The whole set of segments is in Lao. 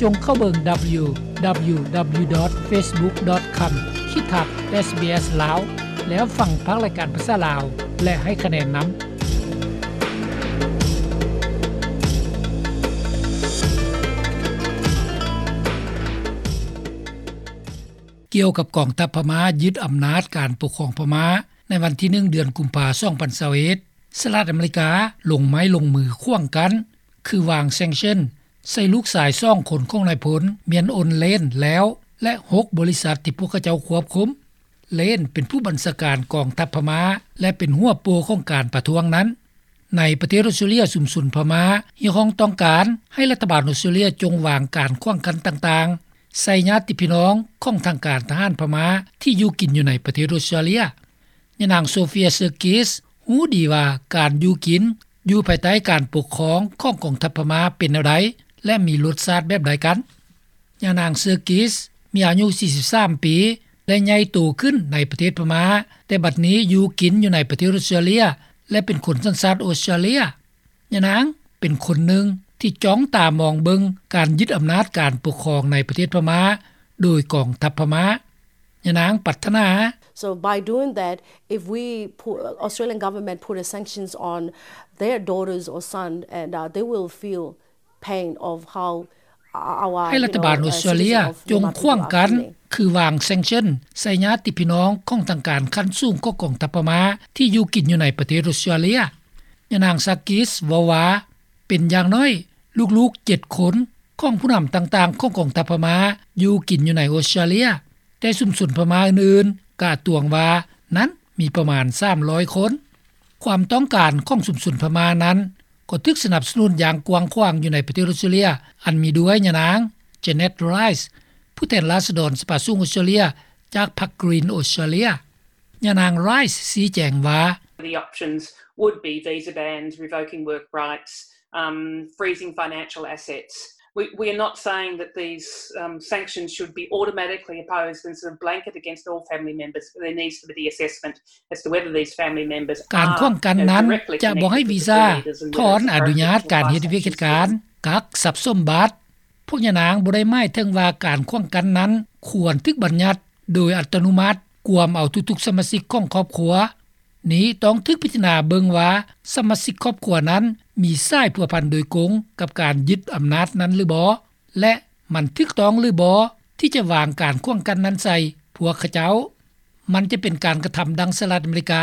ສົ່ງເຂົ້າເບິ່ງ www.facebook.com/sbs ລາວ ແລ້ວຟັງພາກລາຍການພາສາລາວ ແລະ ໃຫ້ຄະແນນນຳ. ກ່ຽວກັບກອງທັບພະມ້າຍຶດອຳນາດການປົກຄອງພະມ້າ ໃນວັນທີໜຶ່ງ ເດືອນກຸມພາ ສອງພັນຊາວເອັດ ສະຫະລັດອາເມລິກາລົງໄມ້ລົງມືຂວາງກັ້ນ ຄືວາງ sanction ໃສ່ລູກຊາຍສອງຄົນຂອງນາຍພົນ Myint Aung Hlaing ແລ້ວ ແລະ ຫົກບໍລິສັດທີ່ພວກເຂົາເຈົ້າຄວບຄຸມ. Hlaing ເປັນຜູ້ບັນຊາການກອງທັບພະມ້າ ແລະ ເປັນຫົວໂປ່ຂອງການປະທ້ວງນັ້ນ. ໃນປະເທດອົດສະຕຣາເລຍ ຊຸມຊົນພະມ້າຮຽກຮ້ອງຕ້ອງການໃຫ້ລັດຖະບານອົດສະຕຣາເລຍຈົ່ງວາງການຂວາງກັ້ນຕ່າງໆ ໃສ່ຍາດຕິພີ່ນ້ອງຂອງທາງການທະຫານພະມ້າທີ່ຢູ່ກິນຢູ່ໃນປະເທດອົດສະຕຣາເລຍ. ຍານາງ Sophia Sergis ຮູ້ດີວ່າການຢູ່ກິນຢູ່ພາຍໃຕ້ການປົກຄອງຂອງກອງທັບພະມ້າເປັນແນວໃດ ແລະ ມີລົດຊາດແບບໃດກັນ. ຍານາງ Sergis ມີອາຍຸສີ່ສິບສາມປີ ແລະ ໃຫຍ່ໂຕຂຶ້ນໃນປະເທດພະມ້າ, ແຕ່ບັດນີ້ຢູ່ກິນຢູ່ໃນປະເທດອົດສະຕຣາເລຍ ແລະ ເປັນຄົນສັນຊາດອົດສະຕຣາເລຍ. ຍານາງເປັນຄົນໜຶ່ງທີ່ຈ້ອງຕາມອງເບິ່ງການຍຶດອຳນາດການປົກຄອງໃນປະເທດພະມ້າໂດຍກອງທັບພະມ້າ. ຍານາງປາດຖະໜາ So by doing that, if we put, Australian government put a sanctions on their daughters or son, and, uh, they will feel pain of how ໃຫ້ລັດຖະບານອົດສະຕຣາເລຍຈົ່ງຂວາງກັ້ນ ຄືວາງ sanction ໃສ່ຍາດຕິພີ່ນ້ອງຂອງທາງການຂັ້ນສູງຂອງກອງທັບພະມ້າທີ່ຢູ່ກິນຢູ່ໃນປະເທດອົດສະຕຣາເລຍ. ຍານາງ Sergis ເວົ້າວ່າ ເປັນຢ່າງໜ້ອຍລູກໆເຈັດຄົນຂອງຜູ້ນຳຕ່າງໆຂອງກອງທັບພະມ້າຢູ່ກິນຢູ່ໃນອົດສະຕຣາເລຍ, ແຕ່ຊຸມຊົນພະມ້າອື່ນໆກະຕວງວ່ານັ້ນມີປະມານສາມຮ້ອຍຄົນ. ຄວາມຕ້ອງການຂອງຊຸມຊົນພະມ້ານັ້ນ ກໍຖືກສະໜັບສະໜູນຢ່າງກວ້າງຂວາງຢູ່ໃນປະເທດອົດສະຕຣາເລຍ ອັນມີດ້ວຍຍານາງ Janet Rice ຜູ້ແທນລາຊະດອນສະພາສູງອົດສະຕຣາເລຍ ຈາກພັກ Green Australia. ຍານາງ Rice ຊີ້ແຈງວ່າ The options would be visa bans, revoking work rights, um, freezing financial assets. We, we are not saying that these, um, sanctions should be automatically imposed and sort of blanket against all family members. There needs to be the assessment as to whether these family members ການຂວາງກັ້ນນັ້ນຈະບໍ່ໃຫ້ວີຊາ, ຖອນອະນຸຍາດການເຮັດວຽກເຮັດການ, ກັກຊັບສົມບັດ. ພວກຍານາງບໍ່ໄດ້ໝາຍເຖິງວ່າການຂວາງກັ້ນນັ້ນຄວນຖືກບັນຍັດໂດຍອັດຕະໂນມັດ, ກວມເອົາທຸກໆສະມາຊິກຂອງຄອບຄົວ. ນີ້ຕ້ອງຖືກພິຈາລະນາເບິ່ງວ່າສະມາຊິກຄອບຄົວນັ້ນມີສາຍພົວພັນໂດຍກົງກັບການຍຶດອຳນາດນັ້ນຫຼືບໍ່ ແລະ ມັນຖືກຕ້ອງຫຼືບໍ່ທີ່ຈະວາງການຂວາງກັ້ນນັ້ນໃສ່ພວກເຂົາເຈົ້າ. ມັນຈະເປັນການກະທຳດັ່ງສະຫະລັດອາເມລິກາ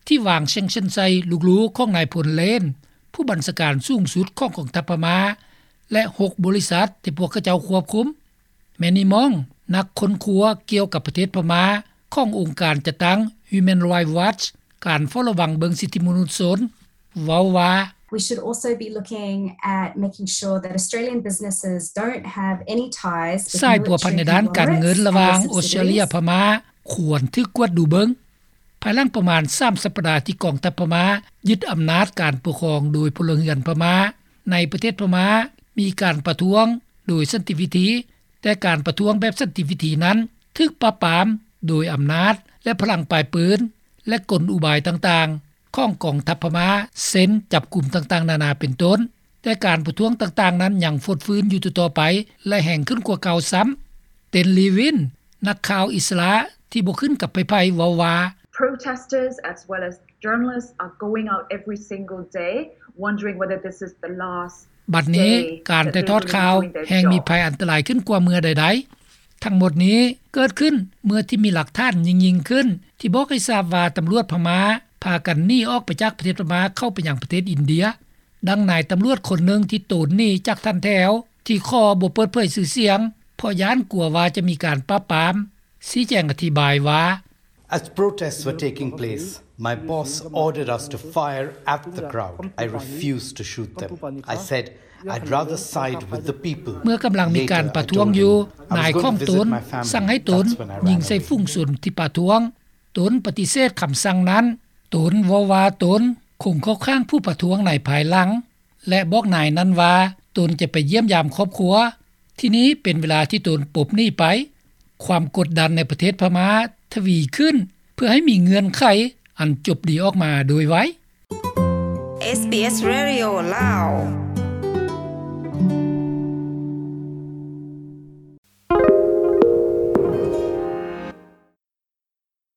ທີ່ວາງ sanction ໃສ່ລູກໆຂອງນາຍພົນ Hlaing ຜູ້ບັນຊາການສູງສຸດຂອງກອງທັບພະມ້າ ແລະ ຫົກບໍລິສັດທີ່ພວກເຂົາເຈົ້າຄວບຄຸມ. Manny Mong ນັກຄົ້ນຄວ້າກ່ຽວກັບປະເທດພະມ້າຂອງອົງການຈັດຕັ້ງ Human Rights Watch ການເຝົ້າລະວັງເບິ່ງສິດທິມະນຸດຊົນ ເວົ້າວ່າ We should also be looking at making sure that Australian businesses don't have any ties with ສາຍພົວພັນໃນດ້ານການເງິນລະຫວ່າງອົດສະຕຣາເລຍ ພະມ້າ ຄວນຖືກກວດດູເບິ່ງ. ພາຍຫຼັງປະມານສາມສັບປະດາທີ່ກອງທັບພະມ້າຍຶດອຳນາດການປົກຄອງໂດຍພົນລະເຮືອນພະມ້າ ໃນປະເທດພະມ້າມີການປະທ້ວງໂດຍສັນຕິວິທີ, ແຕ່ການປະທ້ວງແບບສັນຕິວິທີນັ້ນຖືກປາບປາມໂດຍອຳນາດ ແລະ ພະລັງປາຍປືນ ແລະ ກົນອຸບາຍຕ່າງໆຂອງກອງທັບພະມ້າ ເຊັ່ນ ຈັບກຸມຕ່າງໆນານາເປັນຕົ້ນ, ແຕ່ການປະທ້ວງຕ່າງໆນັ້ນຍັງຟົດຟື້ນຢູ່ຕໍ່ໆໄປ ແລະ ແຮງຂຶ້ນກວ່າເກົ່າຊ້ຳ. Ten Lewin ນັກຂ່າວອິດສະຫຼະທີ່ບໍ່ຂຶ້ນກັບໃຜໆ ເວົ້າວ່າ Protesters as well as journalists are going out every single day wondering whether this is the last ບັດນີ້ການຖ່າຍທອດຂ່າວແຮ່ງມີໄພອັນຕະລາຍຂຶ້ນກວ່າເມື່ອໃດໆ. ທັງໝົດນີ້ເກີດຂຶ້ນເມື່ອທີ່ມີຫຼັກຖານຍິ່ງໆຂຶ້ນ ທີ່ບອກໃຫ້ຊາບວ່າຕຳຫຼວດພະມ້າພາກັນໜີອອກໄປຈາກປະເທດພະມ້າເຂົ້າໄປຍັງປະເທດອິນເດຍ. ດັ່ງນາຍຕຳຫຼວດຄົນໜຶ່ງທີ່ໂຕນໜີຈາກຖັນແຖວ ທີ່ຂໍບໍ່ເປີດເຜີຍຊື່ສຽງ ເພາະຢ້ານກົວວ່າຈະມີການປາບປາມ ຊີ້ແຈງອະທິບາຍວ່າ As protests were taking place, my boss ordered us to fire at the crowd. I refused to shoot them. I said, I'd rather side with the people. ເມື່ອກຳລັງມີການປະທ້ວງຢູ່, ນາຍຂອງຕົນສັ່ງໃຫ້ຕົນຍິງໃສ່ຝູງຊົນທີ່ປະທ້ວງ. ຕົນປະຕິເສດຄຳສັ່ງນັ້ນ. ຕົນເວົ້າວ່າຕົນຄົງເຂົ້າຂ້າງຜູ້ປະທ້ວງໃນພາຍຫຼັງ ແລະ ບອກນາຍນັ້ນວ່າຕົນຈະໄປຢ້ຽມຢາມຄອບຄົວ. ທີ່ນີ້ເປັນເວລາທີ່ຕົນປົບໜີໄປ. ຄວາມກົດດັນໃນປະເທດພະມ້າທະວີຂຶ້ນ ເພື່ອໃຫ້ມີເງື່ອນໄຂອັນຈົບດີອອກມາໂດຍໄວ. ເອສບີເອສ Radio ລາວ